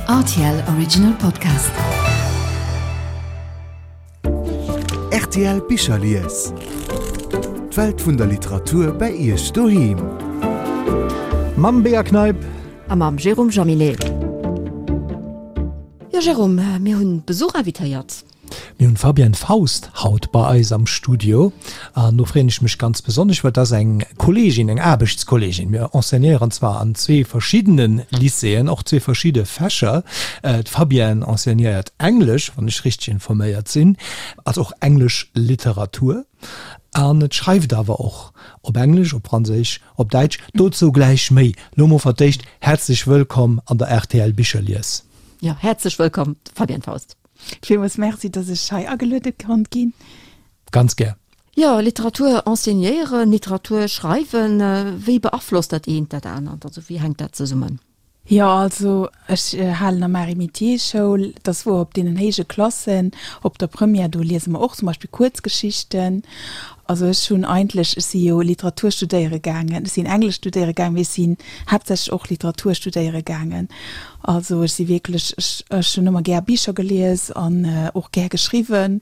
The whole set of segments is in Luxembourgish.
Rtl Original Podcast. Rtl Bicherlies. D'Welt vun der Literatur bei Iech doheem. Mam Bea Kneip. A mam Jérôme Jaminet. Jo Jérôme, mir hunn Besuch invitéiert. Mir hunn d'Fabienne Faust haut bei eis am Studio an do freeën ech mech ganz besonnesch, well et ass eng Kolleegin, eng Aarbechtskolleegin. Mir enseignéieren zwar an zwee verschiddene Lycéeën, och zwee verschidde Fächer. D'Fabienne enseignéiert Englesch, wann ech richteg informéiert sinn, also och englesch Literatur an et schreift awer och op Englesch, op Franséisch, op Däitsch. Dozou gläich méi. Lo mol fir d'éischt häerzlech wëllkomm an der rtl Bicherlies. Jo, häerzlech wëllkomm, Fabienne Faust. Villmools Merci, dass ech hei ageluede konnt ginn. Ganz gär. Jo, Literatur enseignéieren, Literatur schreiwen, wéi beaflosst dat eent dat anert? Also wéi hänkt dat zesummen? Jo, also ech halen am Marie Métiers Schoul, et ass wouer, op deenen héije Klassen, op der Première, do liese mer och zum Beispill Kuerzgeschichten. Also ech hunn eigentlech, ech si jo Literatur studéiere gaangen, ech sinn Englesch studéiere gaangen, mee ech sinn haaptsächlech och Literatur studéiere gaangen. Also ech si wierklech, ech ech hunn ëmmer gär Bicher gelies an och gär geschriwwen.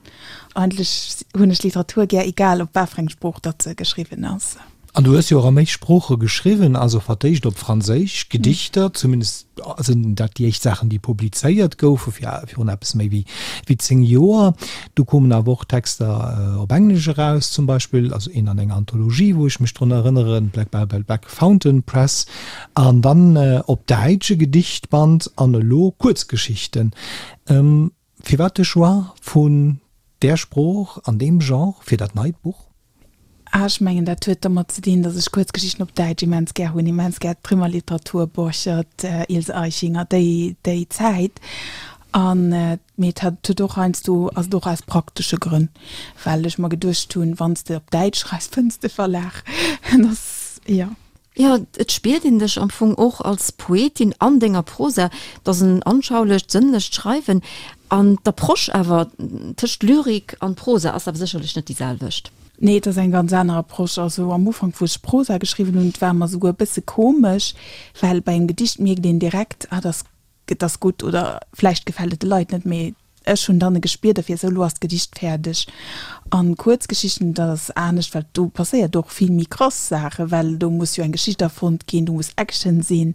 Eigentlech hunn ech Literatur gär, egal op wat fir eng Sprooch datt se geschriwwen ass. An du hues jo och a méi Sprooche geschriwwen, also fir d'éischt op Franséisch, Gedichter, zumindest sinn dat déi éischt Saachen, déi publizéiert goufe virun eppes méi wéi 10 Joer. Du koumen awer och Texter op Englesch eraus, zum Beispill, also een an enger Anthologie, wou ech mech drun erënneren, Black Bible Black Fountain Press, an dann op Däitsch e Gedichtband an elo Kuerzgeschichten. Firwat de Choix vun där Sprooch an deem Genre fir dat neit Buch? Ah, ech mengen, dat huet domat ze dinn, datt ech Kuerzgeschichten op Däitsch immens gär hunn, immens gär d'Trimmerliteratur, Borchert, Ilse Aichinger, déi, déi Zäit. An, mee et hat, huet och heiansdo, ass et och aus praktesche Grënn, well ech mer geduecht hunn, wann s de op Däitsch schreifs, fënns de Verlag. Dat ass, jo. Jo, et spiert een dech am Fong och als Poetin an denger Prosa. Et ass en anschaulecht, sënnlecht Schreiwen. An d'Approche awer tëscht Lyrik an Prosa ass awer sécherlech net déi selwecht. Nee, et ass eng ganz aner Approche. Also am Ufank, wou ech Prosa geschriwwen hunn, et war mer souguer e bësse komesch, well bei engem Gedicht mierkt een direkt, ah, dat ass Et ass gutt oder vläicht gefält et de Leit net, mee ech hunn dann e Gespier derfir, esou elo ass d'Gedicht fäerdeg. An Kuerzgeschichten, dat ass anescht, well do passéiert och vill méi krass Saachen, well do muss jo eng Geschicht erfonnt ginn, do muss Action sinn.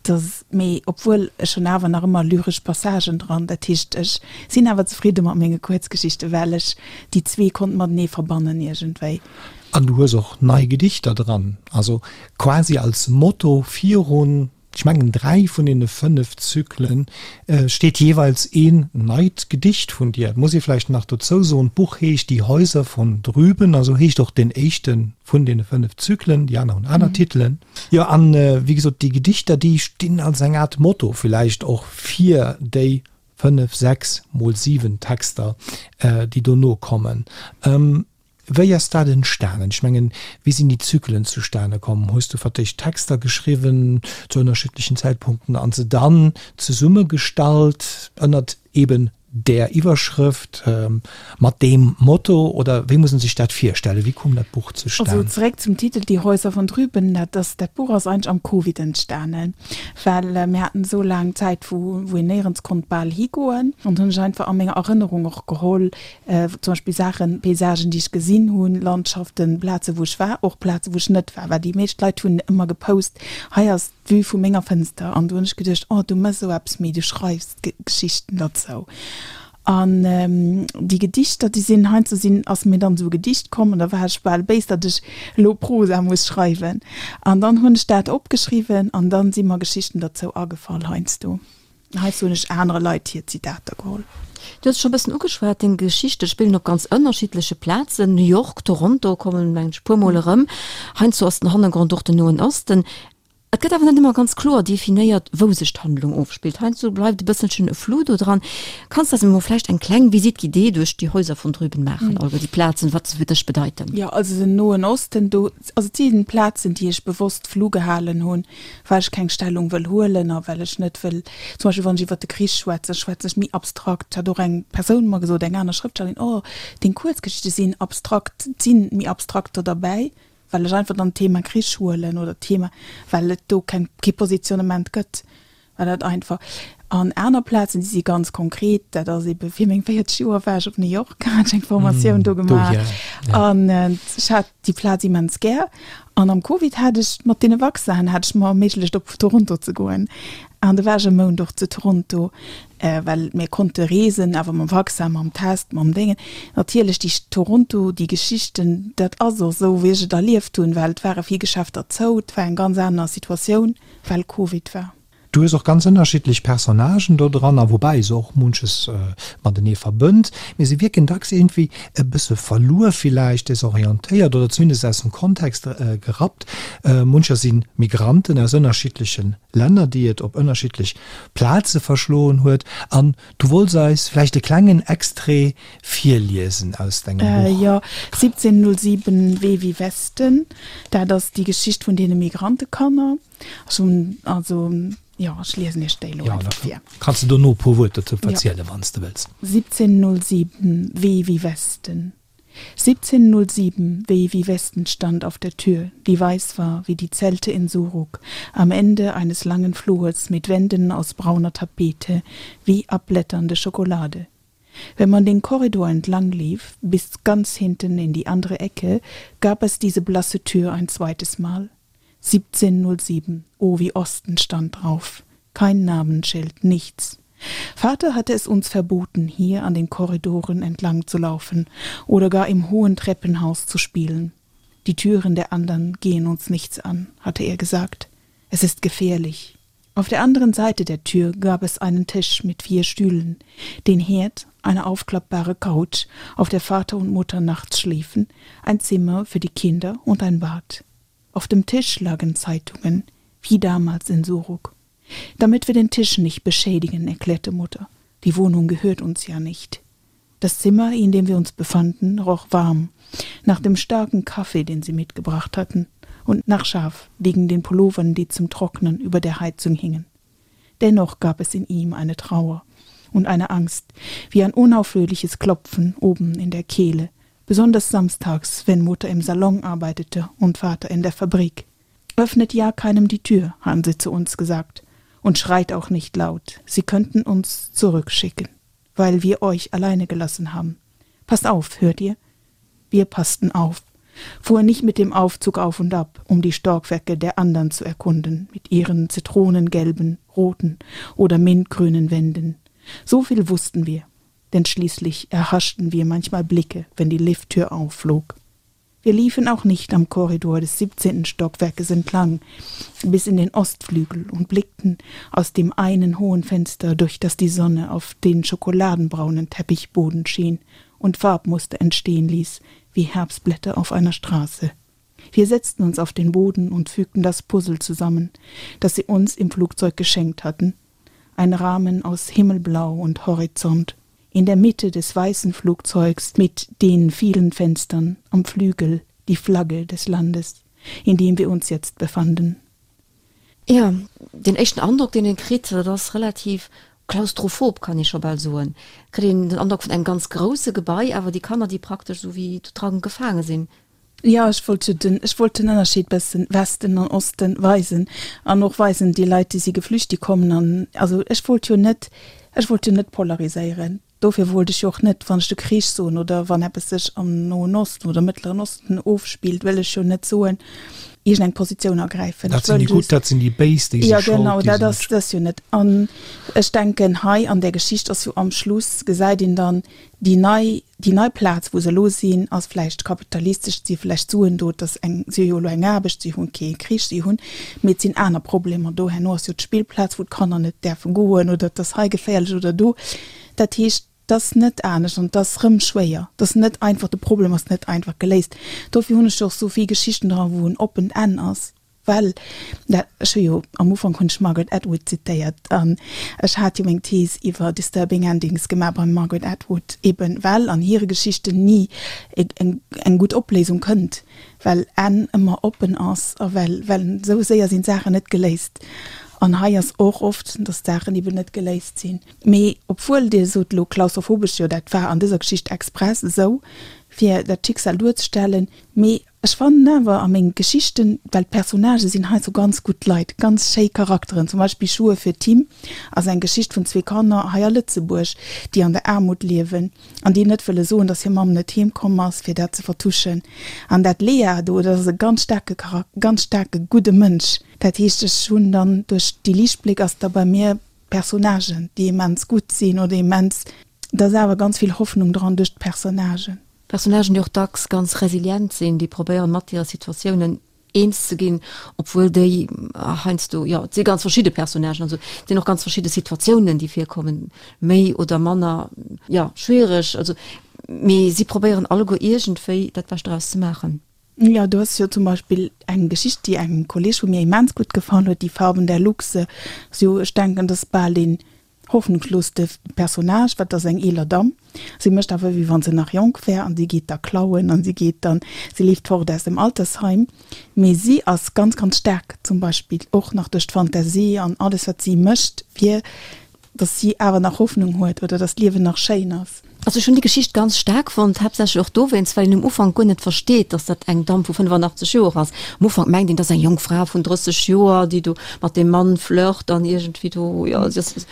Dat ass, mee obwuel ech hunn awer nach ëmmer lyresch Passagen dran, dat heescht ech sinn awer zefridde mat menge Kuerzgeschichten, well ech déi zwee konnt matenee verbannen iergendwéi. An du hues och nei Gedichter dran, also quasi als Motto virun Ech mengen 3 vun deene 5 Zyklen steet jeeweils een neit Gedicht vun dir. Et muss ee vläicht nach dozou soen, d'Buch heescht Die Häuser von drüben, also heescht och deen éischte vun deene 5 Zyklen, déi aner hunn aner Titelen. Jo, an wéi gesot, déi Gedichter, déi stinn als eng Aart Motto villäicht och fir déi 5, 6 mol 7 Texter, déi dono kommen. Wéi ass dat entstanen? Ech mengen, wéi sinn déi Zyklen zustane komm? Hues du fir d'éischt Texter geschriwwen zu ënnerschiddlechen Zäitpunkten an se dann zesummegestallt ënnert eben där Iwwerschrëft, mat deem Motto? Oder wéi muss en sech dat virstellen? Wéi koum dat Buch zustan? Also zeréck zum Titel Die Häuser von drüben, dat ass, dat Buch ass eigentlech am Covid entstanen, well mir haten esou laang Zäit, wou wou een néierens konnt bal higoen an hunn ech einfach a menger Erënnerung och geholl, Zum Beispill Saachen, Paysagen, déi ech gesinn hunn, Landschaften, Plaze wou ech war, och Plaze wou ech net war. Well déi meescht Leit hunn ëmmer gepost, hei ass d'Vue vu menger Fënster. An du hunn ech geduecht, oh du mëss esou eppes méi, du schreifs Geschichten derzou. An déi Gedichter, déi sinn heiansdo sinn, ass mir dann esou e Gedicht komm an da war ech bal béis, datt ech elo Prosa muss schreiwen. An dann hunn ech dat opgeschriwwen an dann si mer Geschichten derzou agefall heiansdo. Heizou hunn ech anere Leit hir Zitater geholl. Du hues et scho e bëssen ugeschwat, deng Geschichte spillen op ganz ënnerschiddleche Plazen, New York, Toronto kommen, mengen ech, e puer Mol erëm. Heiansdo ass den Hannergrond och den Noen Osten. Et gëtt awer net ëmmer ganz kloer definéiert, wou sech d'Handlung ofspillt. Heiansdo bleift e bësselchen e Flou do dran. Kanns de eis emol vläicht eng kleng Visite guidée duerch die Häuser von drüben maachen, alleguer déi Plazen, wat se fir dech bedeiten? Jo, also den Noen Osten, do, also et si Plazen, déi ech bewosst flou gehalen hunn, well ech keng Stellung wëll huelen a well ech net wëll, zum Beispill wann ech iwwert de Krich schwätzen, schwätzen ech méi abstrakt. Hat och eng Persoun mer gesot, eng aner Schrëftstellerin, oh deng Kuerzgeschichte sinn abstrakt, et si méi abstrakter derbäi, well ech einfach dann d'Thema Krich huelen oder d'Thema, well et do keng, kee Positionnement gëtt, well dat einfach. An aner Plazen, déi si ganz konkret, dat ass ebe fir meng 40 Joer war ech op New York, hat ech eng Formatioun do gemaach an ech hat déi Plaz immens gär. An am Covid hat ech mat deene Vaccinen hat ech mer erméiglecht op Toronto ze goen. An do war ech e Mount och zu Toronto, well mir konnte reesen, awer mam Vaccin, mam Test, mam Déngen. Natierlech déi Toronto, déi Geschichten, dat ass och esou wéi ech et erlieft hunn, well et ware vill Geschäfter zou, et war eng ganz aner Situatioun, well Covid war. Du hues och ganz ënnerschiddlech Personnagen do dran, a woubäi se och munches matenee verbënnt, mee se wierken dacks iergendwéi e bësse verluer villäicht, desorientéiert oder zumindest aus dem Kontext gerappt. Muncher si Migranten aus ënnerschiddleche Länner, déi et op ënnerschiddlech Plaze verschloen huet. An du wollts eis vläicht e klengen Extrait virliesen aus dengem Buch. Jo, 1707 Wee wie Westen, dat ass déi Geschicht vun deene Migrantekanner. Ech hunn also, jo, ech liesen Iech déi elo einfach vir. Kanns de dono e puer Wuert dozou verzielen, wann s de wëlls. 1707 Weh wie Westen 1707 Weh wie Westen stand auf der Tür, die weiß war wie die Zelte in Suruk, am Ende eines langen Flurs mit Wänden aus brauner Tapete, wie abblätternde Schokolade. Wenn man den Korridor entlang lief, bis ganz hinten in die andere Ecke, gab es diese blasse Tür ein zweites Mal. 1707 Oh wie Osten stand drauf. Kein Namensschild, nichts. Vater hatte es uns verboten, hier an den Korridoren entlang zu laufen oder gar im hohen Treppenhaus zu spielen. Die Türen der anderen gehen uns nichts an, hatte er gesagt. Es ist gefährlich. Auf der anderen Seite der Tür gab es einen Tisch mit vier Stühlen, den Herd, eine aufklappbare Couch, auf der Vater und Mutter nachts schliefen, ein Zimmer für die Kinder und ein Bad. Auf dem Tisch lagen Zeitungen, wie damals in Suruk. Damit wir den Tisch nicht beschädigen, erklärte Mutter. Die Wohnung gehört uns ja nicht. Das Zimmer, in dem wir uns befanden, roch warm, nach dem starken Kaffee, den sie mitgebracht hatten, und nach Schaf wegen den Pullovern, die zum Trocknen über der Heizung hingen. Dennoch gab es in ihm eine Trauer und eine Angst, wie ein unaufhörliches Klopfen oben in der Kehle, besonders samstags, wenn Mutter im Salon arbeitete und Vater in der Fabrik. Öffnet ja keinem die Tür, haben sie zu uns gesagt, und schreit auch nicht laut, sie könnten uns zurückschicken, weil wir euch alleine gelassen haben. Passt auf, hört ihr? Wir passten auf, fuhren nicht mit dem Aufzug auf und ab, um die Stockwerke der anderen zu erkunden, mit ihren zitronengelben, roten oder mintgrünen Wänden. So viel wussten wir, denn schließlich erhaschten wir manchmal Blicke, wenn die Lifttür aufflog. Wir liefen auch nicht am Korridor des 17. Stockwerkes entlang, bis in den Ostflügel und blickten aus dem einen hohen Fenster, durch das die Sonne auf den schokoladenbraunen Teppichboden schien und Farbmuster entstehen ließ, wie Herbstblätter auf einer Straße. Wir setzten uns auf den Boden und fügten das Puzzle zusammen, das sie uns im Flugzeug geschenkt hatten. Ein Rahmen aus Himmelblau und Horizont. In der Mitte des weißen Flugzeugs mit den vielen Fenstern am Flügel die Flagge des Landes, in dem wir uns jetzt befanden. Jo, deen éischten Androck, deen een kritt, dat ass relativ klaustrophob, kann ee scho bal soen. Kritt een den Androck vun engem ganz grousse Gebai, awer déi Kanner, déi praktesch esou wéi do dran gefaange sinn. Jo, ech wollt jo den, ech wollt den Ënnerscheed bëssen Westen an Osten weisen an och weisen, déi Leit, déi si geflücht, déi kommen an, also ech wollt jo net, ech wollt jo net polariséieren. Dofir wollt ech jo och net, wann ech de Krich soen oder wann eppes sech am Noen Osten oder Mëttleren Osten ofspillt, wëll ech jo net soen, iergendeng Positioun ergräifen. Dat sinn déi Gutt, dat sinn déi Béis, déi si schold. Jo, genau, dat ass dat jo net. An ech denken, hei an där Geschicht ass jo am Schluss, gesäit een dann déi nei, déi nei Plaz, wou se elo sinn, ass vläicht kapitalistesch, et si vläicht Suen do, et ass eng, si hu jo elo eng Aarbecht, si hu kee Krich, si hunn, mee et sinn aner Problemer do. Herno ass jo d'Spillplaz, wou d'Kanner net däerfe goen oder et ass hei geféierlech oder do. Dat heescht, et ass net anescht an et ass rëm schwéier. Et ass net einfach, de Problem ass net einfach geléist. Dofir hunn ech jo och sou vill Geschichten dran, wou en oppent Enn ass. Well, dat, ech hu jo, am Ufank hunn ech Margaret Atwood zitéiert an ech hat jo meng Thees iwwer Disturbing Endings gemaach beim Margaret Atwood, eben well an hire Geschichten ni eng, eng gutt Opléisung kënnt, well Enn ëmmer oppen ass a well, well esou séier sinn d'Saachen net geléist. An hei ass och oft, datt d'Saachen eben net geléist sinn. Mee obwuel, Dir sot elo klaustrophobesch, jo dat war an dëser Geschicht express esou. Fir dat Schicksal duerzestellen, mee ech fannen awer a menge Geschichten, well d'Personnagë sinn hei sou ganz gutt Leit, ganz schéi Charakteren, zum Beispill Schuhe für Tim ass eng Geschicht vun zwee Kanner hei a Lëtzebuerg, déi an der Aarmut liewen an déi net wëlle soen, dass hir Mamm net heem komm ass, fir dat ze vertuschen. An dat Lea do, dat ass e ganz staarke Charak-, ganz staarke gudde Mënsch. Dat heescht, ech hunn dann duerch déi Liichtbléck ass da bei mir Personnagen, déi immens gutt sinn oder immens, da ass awer ganz vill Hoffnung dran duerch d'Personnagen. Personnagen, déi och dacks ganz resilient sinn, déi probéieren, mat hire Situatiounen eens ze ginn, obwuel déi heiansdo, jo, et si ganz verschidde Personnagen, also et sinn och ganz verschidde Situatiounen, déi virkommen, méi oder manner, jo, schwiereg, also, mee si probéieren alleguer iergendwéi dat Bescht draus ze maachen. Jo, do ass jo zum Beispill eng Geschicht, déi engem Kolleg vu mir immens gutt gefall huet, Die Farben der Luchse. Ass jo, ech denken, dat ass bal deen hoffnungslooste Personnage, wat ass eng eeler Damm. Si mécht awer, wéi wa se nach jonk wär an si geet da klauen an si geet dann, si leeft fort aus dem Altersheim. Mee si ass ganz, ganz staark zum Beispill och nach duerch d'Fantasie an alles, wat si mécht, fir dass si awer nach Hoffnung huet oder dass d'Liewen nach schéin ass. Also ech hunn déi Geschicht ganz staark fonnt, haaptsächlech och dowéinst, well een um Ufank guer net versteet, dass dat eng Damm vu 85 Joer ass. Am Ufank mengt een, dat ass eng jonk Fra vun 30 Joer, déi do mat deem Mann flirt an iergendwéi do, jo, si ass,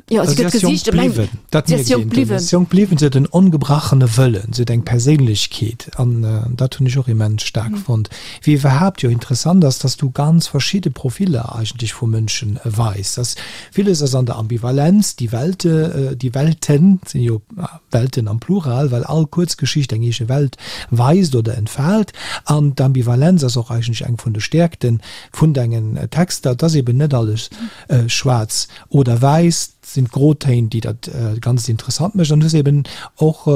jo, si gëtt gesicht, e mengt, si ass jonk bliwwen. Si ass jonk bliwwen, si huet en ongebrachene Wëllen, si huet eng Perséinlechkeet an dat hunn ech och immens staark fonnt. Wéi iwwerhaapt jo interessant ass, dass du ganz verschidde Profiller eigentlech vu Mënschen weis, dass Villes ass an der Ambivalenz, déi Welte, déi Welten sinn jo Welten am Plural, well all Kuerzgeschicht eng eege Welt weist oder entfaalt. An d'Ambivalenz ass och eigentlech eng vun de Stäerkte vun dengen Texter, et ass eben net alles schwaarz oder wäiss, et sinn d'Grotéin, déi dat Ganzt interessant mécht. An du hues eben och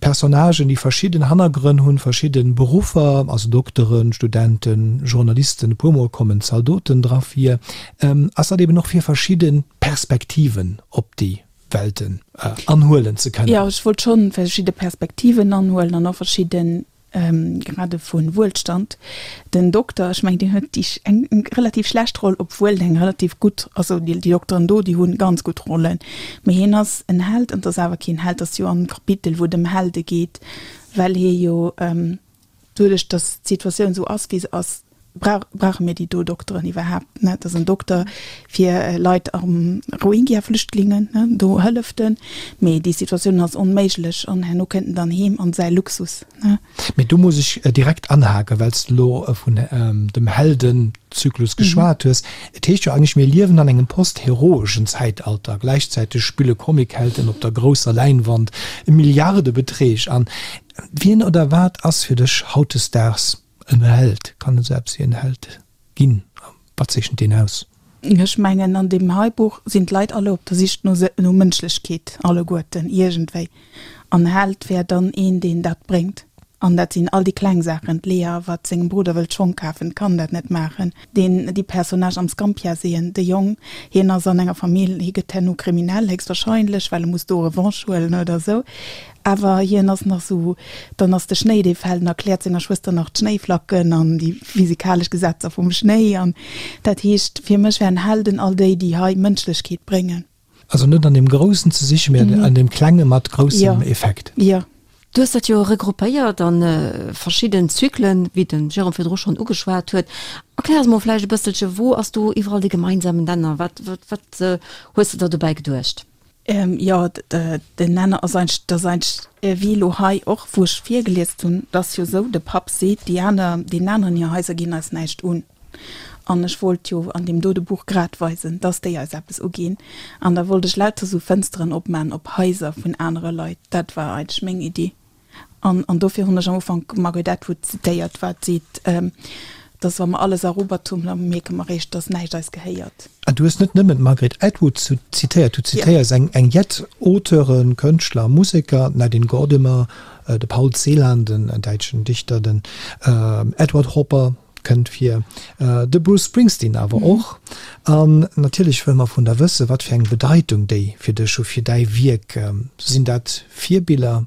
Personnagen, déi verschidden Hannergrënn hunn, verschidde Beruffer, also Dokteren, Studenten, Journalisten, e puer Mol kommen Zaldoten dra vir. Ass dat eben och fir verschidde Perspektiven op déi Welten anhuelen ze kënnen? Jo, ech wollt schonn verschidde Perspektiven anhuelen an och verschidde Grade vu Wuelstand. Den Dokter, ech mengen, deen huet déi eng relativ schlecht Roll, obwuel en eng relativ gutt, also déi Dokteren do, déi hu ganz gutt Rollen, mee hien ass en Held an et ass awer keen Held, ass jo am Kapitel, wou et ëm Helde geet, well hie jo doduerch, datt d'Situatioun esou ass, wéi se ass, Brauch, brauche mir déi do Dokteren iwwerhaapt? Ne, et ass en Dokter fir Leit am Rohingya-Flüchtlingen, ne, do hëlleft en, mee déi Situatioun ass onméiglech an herno kënnt en dann heem an säi Luxus, ne. Mee do muss ech direkt anhaken, well s de elo vun dem Heldenzyklus geschwat hues. Et heescht jo eigentlech, mir liewen an engem post-heroeschen Zäitalter. Gläichzäiteg spille Comichelden op der grousser Läinwand Milliardebeträg an. Wien oder wat ass fir dech hautdesdaags En Held, kann esou eppes wéi en Held ginn? A wat zeechent deen aus? Ech mengen, an deem hei Buch sinn d'Leit alle op der Sich no no Mënschlechkeet, alleguerten, iergendwéi. An Held wär dann een, deen dat bréngt. An dat sinn all déi kleng Saachen, d'Lea, wat sengem Brudder wëllt Schong kafen, kann dat net maachen. Deen, déi Personnage am Scampia-Seen, de Jong, hien ass an enger Famill, hie gëtt herno kriminell, héchstwahrscheinlech, well e muss do Revanche huelen oder esou. Awer hien ass nach sou, dann ass de Schnéi dee fält, en erkläert senger Schwëster nach d'Schnéiflacken an déi physikalesch Gesetzer vum Schnéi an dat heescht, fir mech wären Helden all déi, déi hei Mënschlechkeet bréngen. Also net an deem Groussen ze sichen, mä an deem Klenge mat groussem Effekt. Jo. Du hues dat jo regruppéiert a verschidden Zyklen, wéi de Jérôme virdru schonn ugeschwat huet. Erklär eis mol vläicht e bësselche, wou ass do iwwerall de gemeinsamen Nenner? Wat, wat hues de der dobäi geduecht? Jo, den Nenner ass eigentlech, dat ass eigentlech wéi elo hei och, wou ech virgeliest hunn, et ass jo esou, de Papp seet, déi aner, deenen aneren hir Haiser ginn eis näischt un. An ech wollt jo an deem dote Buch grad weisen, dass déi eis eppes uginn. An da wollt ech lauter esou Fënsteren opman op Haiser vun anere Leit. Dat war eigentlech meng Iddi. An, an dofir hunn ech am Ufank d'Margaret Atwood zitéiert, wat seet, dass wa mer alles erobert hunn, da mierke mer eréischt, dass näischt eis gehéiert. An du hues net nëmmen d'Margaret Atwood zitéiert, du zitéiers eng, eng jett Auteuren, Kënschtler a Museker, d'Nadine Gordimer, de Paul Celan, den däitschen Dichter, den Edward Hopper, Kënnt vir. De Bruce Springsteen awer och. An natierlech wëlle mer vun der wëssen, wat fir eng Bedeitung déi fir dech hu, fir däi Wierk. Sinn dat Virbiller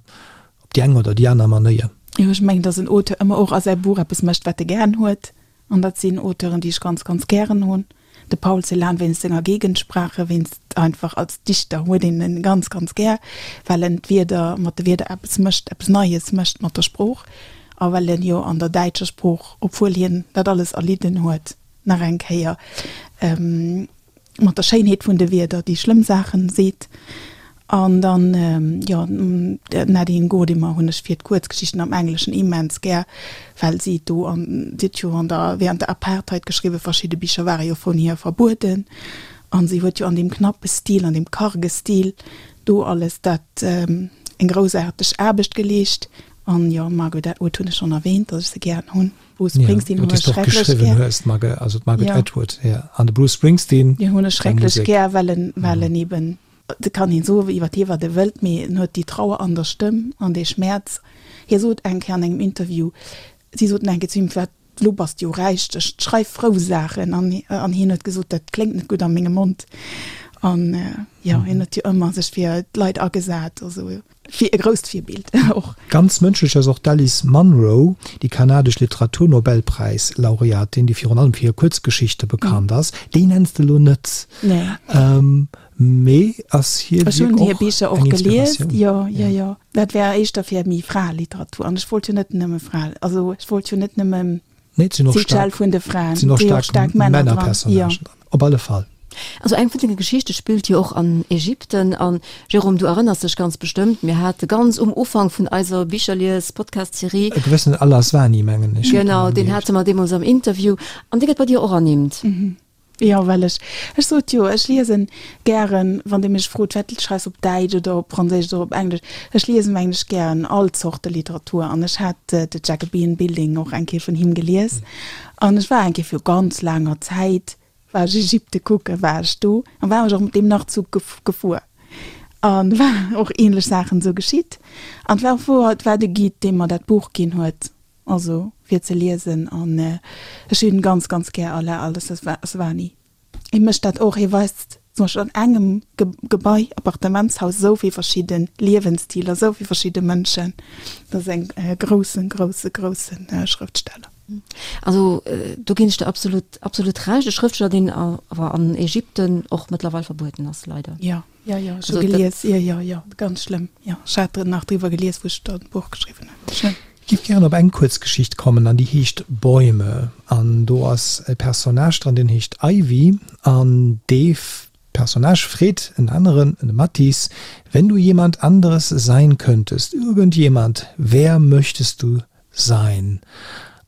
op déi eng oder déi aner Manéier? Jo, ech mengen, datt en Auteur ëmmer och a säi Buch eppes mécht, wat e gären huet. An dat sinn Auteuren, déi ech ganz, ganz gären hunn. De Paul Celan wéinst senger Gegensprache, wéinst einfach als Dichter huet een en ganz, ganz gär, well en d'Wierder, mat de Wierder eppes mécht, eppes Neies mécht mat der Sprooch a well en jo an der däitscher Sprooch, obwuel hien dat alles erlidden huet, nach eng Kéier mat der Schéinheet vun de Wierder déi schlëmm Saachen seet. An dann, jo, d'Nadine Gordimer hunn ech fir d'Kuerzgeschichten am Engleschen immens gär, well si do an, si huet jo an der, während der Apartheid geschriwwen, verschidde Bicher ware jo vun hir verbueden, an si huet jo an deem knappe Stil, an deem karge Stil do alles dat eng groussaarteg Aarbecht geleescht. An jo, Margaret Atwood hunn ech schonn erwähnt, datt ech se gären hunn. Bruce Springsteen hunn ech schrecklech gär. Hues, Margaret, also d'Margaret ja. Atwood, ja. An de Bruce Springsteen. Deen hunn ech schrecklech gär, well en, well en eben, et kann een soen iwwer hie wat e wëllt, mee en huet déi Trauer an der Stëmm an dee Schmäerz. Hie sot eng Kéier an engem Interview, si soten eng Kéier zu him, wat, lo bass de jo räich, ech schreif frou Saachen. An, an hien huet gesot, dat kléngt net gutt a mengem Mond. An jo, hien huet jo ëmmer sech fir d'Leit agesat a sou. Fir e grousst Virbild och. Ganz mënschlech ass och d'Alice Munro, déi kanadesch Literaturnobelpräis-Laureatin, déi virun allem fir hir Kuerzgeschichte bekannt ass. Déi nenns de elo net, mee ass hir Wierk och eng Inspiratioun? Ech hunn hir Bicher och gelies, jo, jo, jo. Dat war éischter fir méi Fraeliteratur an ech wollt jo net nëmme Frae, also ech wollt jo net nëmme Nee, et sinn och staark, vun de Fraen, sinn och staark Männerpersonnagen dran, op alle Fall. Also eng vun denge Geschichte spillt jo och an Ägypten. An Jérôme, du erënners dech ganz bestëmmt, mir hate ganz um Ufank vun eiser Bicherlies-Podcast-Serie. E gewëssenen Al-Aswany, mengen ech. Genau, deen hate mer deemools am Interview. An dee gëtt bei dir och ernimmt. Jo, well ech, ech sot jo, ech liesen gären, wann Dir mech frot, wat schreifs op Däitsch oder op Franséisch oder op Englesch, ech liesen mengen ech gären all Zorte Literatur an ech hat The Jacobean Building och eng Kéier vun him gelies an ech war eng Kéier viru ganz laanger Zäit, war ech Ägypte kucken, war ech do an war ech och mat deem Nachtzug gefuer an war och ähnlech Saachen esou geschitt an et war och wouer, et war de Guide, dee mer dat Buch ginn huet. Also fir ze liesen an ech hunn ganz ganz gär Alaa Al-Aswany. Hie mécht dat och, hie weist zum Beispill an engem Gebai, Appartementshaus, esou vill verschidde Liewensstiler, esou vill verschidde Mënschen. Dat ass eng groussen, grousse, grousse Schrëftsteller. Also do ginn ech der absolut, absolut Recht. E Schrëftsteller, deen awer an Ägypten och mëttlerweil verbueden ass, leider. Jo. Jo, jo, ech hu gelies, jo, jo, jo, ganz schlëmm, jo. Ech hat nach driwwer gelies, wou ech dat Buch geschriwwen hunn. Schlëmm. Ech géif gären op eng Kuerzgeschicht kommen, an déi heescht Bäume. An do ass e Personnage dran, deen heescht Ivy. An dee Personnage freet en aneren, de Mathis, Wenn du jemand anderes sein könntest, irgendjemand, wer möchtest du sein?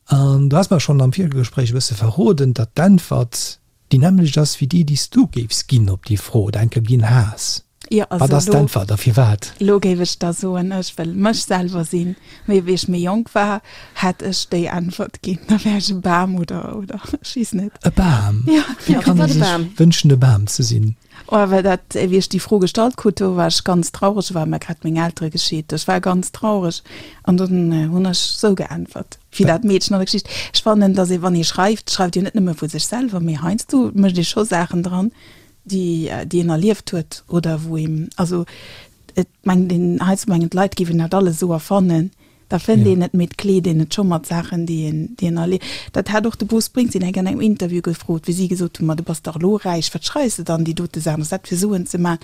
An du has mer schonn am Virgespréich e bësse verroden, datt d'Äntwert Déi nämmlecht ass wéi déi, déi s du géifs ginn op déi Fro oder enke ginn has. Jo, also Wat ass d'Äntwert a firwat? Elo géif ech da soen, ech wëll mech selwer sinn. Mee wéi ech méi jonk war, hätt ech déi Äntwert ginn, da wär ech e Bam oder, oder ech weess net. E Bam? Jo. Wéi kann ee sech wënschen, e Bam ze sinn? Oh, well dat, wéi ech déi Fro gestallt krut, do war ech ganz traureg, do ware mer grad meng Eltere gescheet, ech war ganz traureg an dunn hunn ech sou geäntwert, wéi dat Meedchen an der Geschicht. Ech fannen, datt ee wann ee schreift, schreift een net nëmme vu sech selwer, mee heiansdo mécht ee scho Saachen dran, déi déi een erlieft huet oder wou een, also et mengt een, heiansdo mengen d'Leit géifen dat alles esou erfannen, Da fënnt een et, mee et kleet een et scho mat Saachen, déi een, déi een erlieft. Dat hat och de Bruce Springsteen eng Kéier an engem Interview gefrot, wéi si gesot hunn, Ma du bass dach elo räich, wat schreifs de dann déi dote Saachen, ass dat fir Suen ze maachen?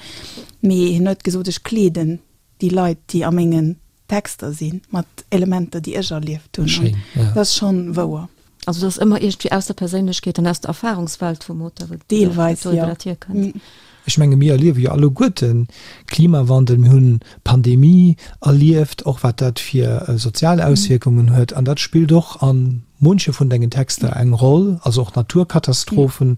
Mee hien huet gesot, Ech kleeden déi Leit, déi a mengen Texter sinn, mat Elementer, déi ech erlieft hunn. Schéin, ja. Dat ass schonn wouer. Also dat ass ëmmer iergendwéi aus der Perséinlechkeet an aus der Erfahrungswelt vum Auteur, wou Deelweis, jo. dat hierkënnt. Ech menge mir erliewe jo alleguerten Klimawandel, mir hunn d'Pandemie erlieft, och wat dat fir sozial Auswierkungen huet. An dat spillt och a munche vun dengen Texter eng Roll, also och Naturkatastrophen,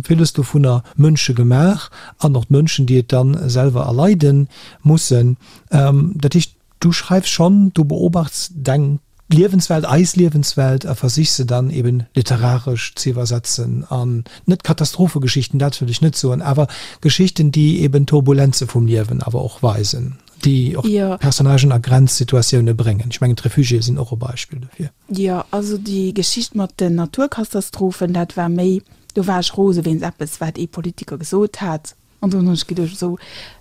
villes dovunner mënschegemaach an och d'Mënschen, déi et da selwer erleide mussen. Dat heescht, Du schreifs schonn, du beobachts deng Liewenswelt, eis Liewenswelt a versichs se dann eben literaresch ze iwwersetzen an net Katastrophegeschichten, dat wëll ech net soen, awer Geschichten, déi eben d'Turbulenze vum Liewen awer och weisen, déi och Personnagen a Grenzsituatioune bréngen. Ech mengen d'Refugiéë sinn och e Beispill dofir. Jo, also déi Geschicht mat den Naturkatastrophen, dat war méi, do war ech rose wéinst eppes, wat ee Politiker gesot hat. An dunn hunn ech geduecht, esou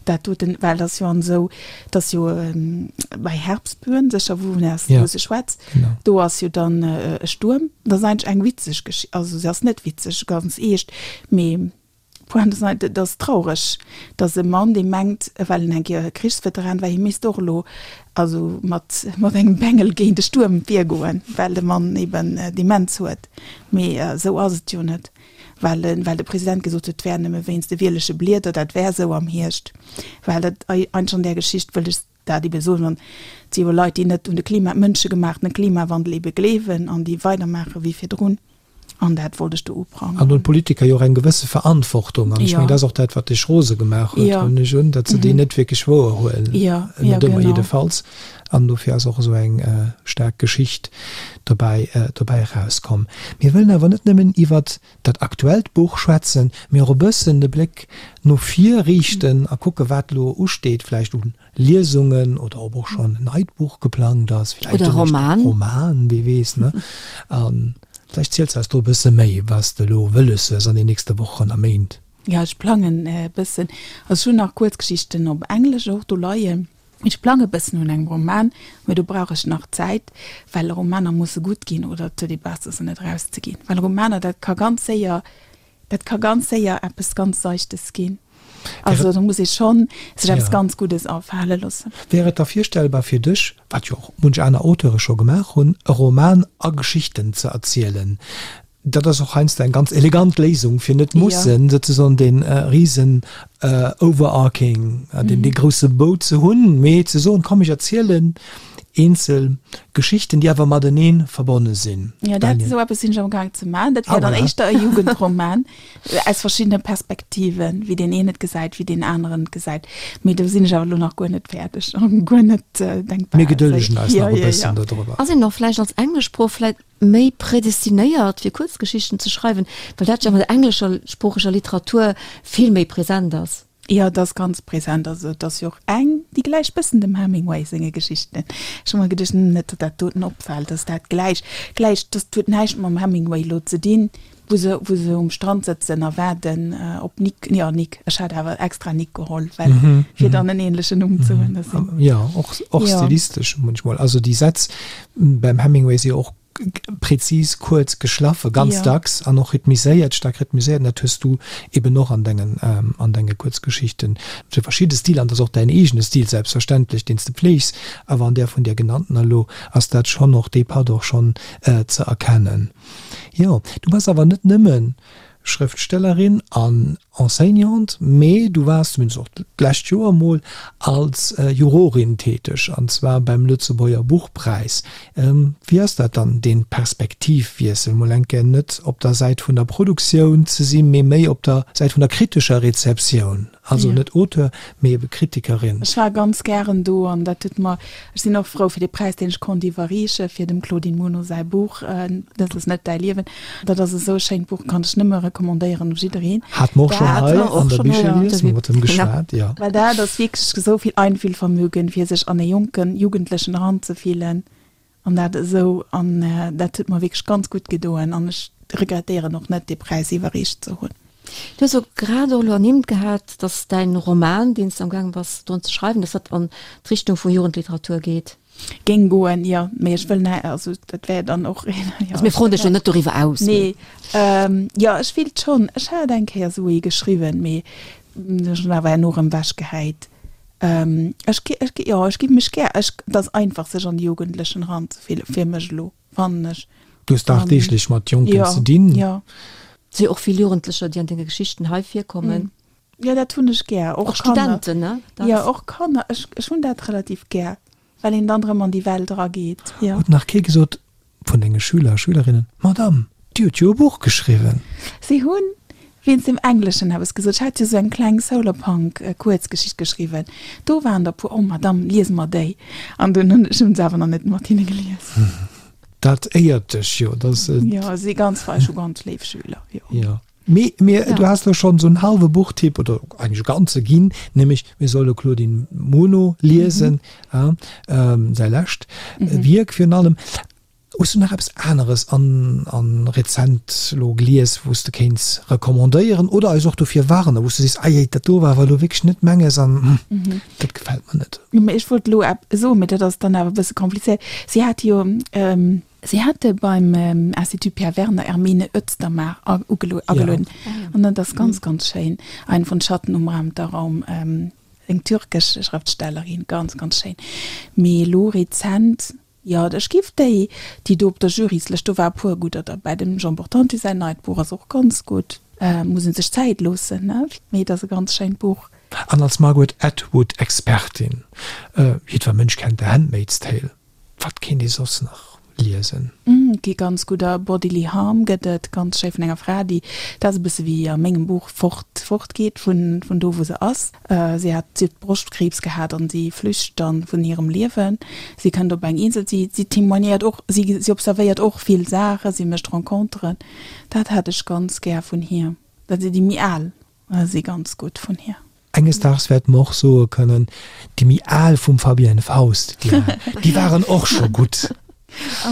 dat doten, well dat ass jo an esou, dat ass jo bei Herbstböen, sécher wou wou se schwätzt, do ass jo dann e Stuerm. Dat ass eigentlech eng witzeg Geschicht, also se ass net witzeg, ganz eescht, mee d'Pointe ass eigentlech, et ass traureg, datt e Mann, dee mengt, well en eng Kéier Krichsveteran war, hie misst och elo also mat mat engem Bengel géint e Stuerm virgoen, well de Mann eben Demenz huet. Mee esou ass et jo net. Well well de President gesot huet, et wär nëmme wéinst de wierleche Blieder, dat wär esou am Hierscht. Well dat eigentlech an där Geschicht wëll ech dat ebe soen, an et si jo Leit, déi net un de Klima, mënschegemaachtene Klimawandel ebe gleewen an déi weidermaache wéi virdrun. An dat wollt ech do uprangeren. An hunn d'Politiker jo och eng gewësse Verantwortung. An ech mengen, dat ass och dat, wat dech rose gemaach huet, huelen ech un, datt se déi net wierklech wouerhuelen. Net ëmmer jiddefalls. An dofir ass och esou eng staark Geschicht dobäi dobäi erauskomm. Mir wëllen awer net nëmmen iwwert dat aktuellt Buch schwätzen, mee och e bëssen de Bléck no vir riichten a kucke wat elo usteet, vläicht u Liesungen oder ob och schonn en neit Buch geplangt ass, vläicht Oder e Roman. Roman, wie weess, ne? A vläicht ziels eis do e bësse méi, wat s de elo wëlles hues an den nächste Wochen a Méint. Jo, ech plangen e bëssen. Also ech hunn nach Kuerzgeschichten op Englesch och do leien. Ech plange bëssen un engem Roman, mee do brauch ech nach Zäit, well Romaner musse gutt ginn oder et huet ee besser se net erauszeginn, well Romaner dat ka ganz séier, dat ka ganz séier eppes ganz Seichtes ginn. Also do muss ee schonn sech eppes ganz Guddes afale loossen. Wär et da virstellbar fir dech, wat jo och munch aner Auteure scho gemaach hunn, e Roman a Geschichten ze erzielen? Dat ass och heiansdo eng ganz elegant Léisung, fir net mussen souzesoen dee risen overarching, deen dee grousse Bou ze hunn, mee ze soen, komm ech erzielen eenzel Geschichten, déi awer matenee verbonne sinn. Jo, dat, esou eppes sinn ech amgaang ze maachen. Dat wär dann éischter e Jugendroman aus verschiddene Perspektiven, wéi deen een et gesäit, wéi deen aneren et gesäit. Mee do sinn ech awer elo nach guer net fäerdeg an guer net denkbar. Mir gedëllegen eis nach e bëssen dodrüber. Ass een och vläicht als Engleschsprooch vläicht méi prädestinéiert fir Kuerzgeschichten ze schreiwen, well dat jo an der engleschsproocheger Literatur vill méi present ass. Jo, et ass ganz present. Also et ass jo och eng, déi gläicht bëssen dem Hemingway senge Geschichten. Ech hu mer geduecht, hm, net datt dat doten opfält, datt dat gläich, gläicht, dat huet näischt mam Hemingway elo ze dinn, wou se, wou se um Strand sëtzen a waarden op Nick, jo Nick, ech hat awer extra Nick geholl, well fir dann en ähnlechen Numm ze hunn. Dat sinn. Jo, och, och stilistesch munchmol. Also déi Sätz beim Hemingway si jo och prezis, kuerz, geschlaffe ganz dacks an och rhythmiséiert, staark rhythmiséiert. An dat hues du eben och an dengen, an denge Kuerzgeschichten. Et si verschidde Stiler an dat ass och däin eegene Stil selbstverständlech, deen s de pfleegs, awer an där vun där genanntener elo ass dat schonn och, dee Patt och schonn ze erkennen. Jo, du bass awer net nëmme Schrëftstellerin an Enseignante, mee du waars zumindest och d'lescht Joer mol als Jurorin täteg, an zwar beim Lëtzebuerger Buchpräis. Wéi ass dat dann, dee Perspektivwiessel, mol eng Kéier net op der Säit vun der Produktioun ze sinn, mee méi op der Säit vun der kritescher Rezeptioun? Also net Auteur, mee ebe Kritikerin. Ech war ganz gären do an dat huet mer, ech sinn och frou fir dee Präis, deen ech konnt iwwerreeche fir dem Claudine Muno säi Buch Dat ass net däi Liewen. Dat ass esou e schéint Buch, kann ech nëmme recommandéieren u jiddereen. Hate mer och schonn hei an der Bicherlies, hu mer mat him geschwat, jo. Well dat ass wierklech esou vill Einfühlvermögen, fir sech an e jonken Jugendlechen eranzefillen. An dat esou, an dat huet mer wierklech ganz gutt gedoen an ech regrettéieren och net, dee Präis iwwerreecht ze hunn. Du hues och grad och elo ernimmt gehat, dass däin Roman, deen s de am gaange bass drun ze schreiwen, dass dat an d'Richtung vu Jugendliteratur geet. Géing goen, jo, mee ech wëll nä, also dat wär dann och een, jo. Also mir froen dech elo net doriwwer aus, mee. Nee, jo, ech wéilt schonn, ech hat eng Kéier esou ee geschriwwen, mee ech hunn awer herno erëm ewechgehäit. Ech gi, ech gi, jo, ech gi mech gär, ech, et ass einfach sech an déi Jugendlechen eranzefillen, fir mech elo, fannen ech. Du hues dagdeeglech mat Jonken ze dinn. Jo, jo. Et si jo och vill Jugendlecher, déi an denge Geschichten hei virkommen. Jo, dat hunn ech gär. Och Kanner. Och Studenten, ne? Jo, och Kanner. Ech, ech hunn dat relativ gär, well een dann erëm an déi Welt erageet, jo. Huet nach kee gesot vun denge Schüler a Schülerinnen, Madame, Dir hutt jo e Buch geschriwwen? Si hunn wéinst dem Engleschen eppes gesot. Ech hat jo sou eng kleng Solarpunk-Kuerzgeschicht geschriwwen. Do waren der e puer, Oh Madame, lies mer déi. An dunn hunn ech hunn se awer nach net mat hinne gelies. Dat éiert dech jo, dass et. Jo, si ganz fei, ech hu ganz léif Schüler, jo. Jo. Mee mir, du has elo schonn esou en hallwe Buchtipp oder eigentlech e ganze ginn, nämlech mir solle Claudine Muno liesen, säi lescht Wierk virun allem. Hues du nach eppes aneres an an rezent elo gelies, wou s de kéints recommandéieren oder eis och dofir warnen, wou s du sees, Ei, dat do war awer elo wierklech net menges an dat gefält mer net? Jo, mee ech wollt elo epp soen, mee dat ass dann awer e bësse komplizéiert. Si hat jo, si hate beim Institut Pierre Werner Hermine Özdamar agelueden an dat ass ganz, ganz schéin, Ein von Schatten umrahmter Raum, eng türkesch Schrëftstellerin, ganz, ganz schéin. Mee elo rezent Jo, ech giff déi, déi do op der Juryslëscht, do war e puer gudder derbäi. Dem Jean Portante säin neit Buch ass och ganz gutt. Muss een sech Zäit loossen, ne? Mee et ass e ganz schéint Buch. An als Margaret Atwood Expertin, jiddwer Mënsch kennt The Handmaid's Tale, wat kéint ee soss nach liesen? Et gi ganz gudder. Bodily Harm gëtt et, ganz schéi vun enger Fra, déi, dat ass e bësse wéi a mengem Buch, fort, fortgeet vun, vun do wou se ass. Si hat, si huet Broschtkriibs gehat an si flücht dann vun hirem Liewen. Si kënnt op eng Insel, si, si témoignéiert och, si, si observéiert och vill Saachen, si mécht Renconteren. Dat hat ech ganz gär vun hir. Dat si déi méi al si ganz gutt vun hir. Enges Daags wäerte mer och soe kënnen, déi méi al vum Fabienne Faust, déi al, déi waren och scho gutt.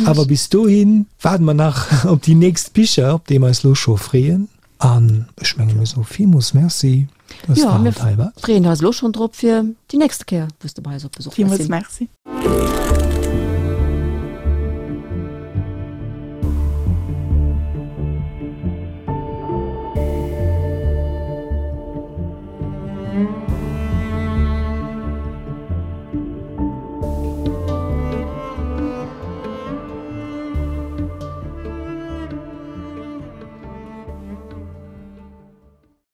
Awer bis dohi waarde mer nach op déi nächst Bicher, op déi mer eis lo scho freeën. An ech menge mir soe villmools Merci, dass der haut hei waart. Jo, mir freeën eis elo schonn drop fir déi nächste Kéier, wou s de bei eis op Besuch wäers sinn. Villmools Merci.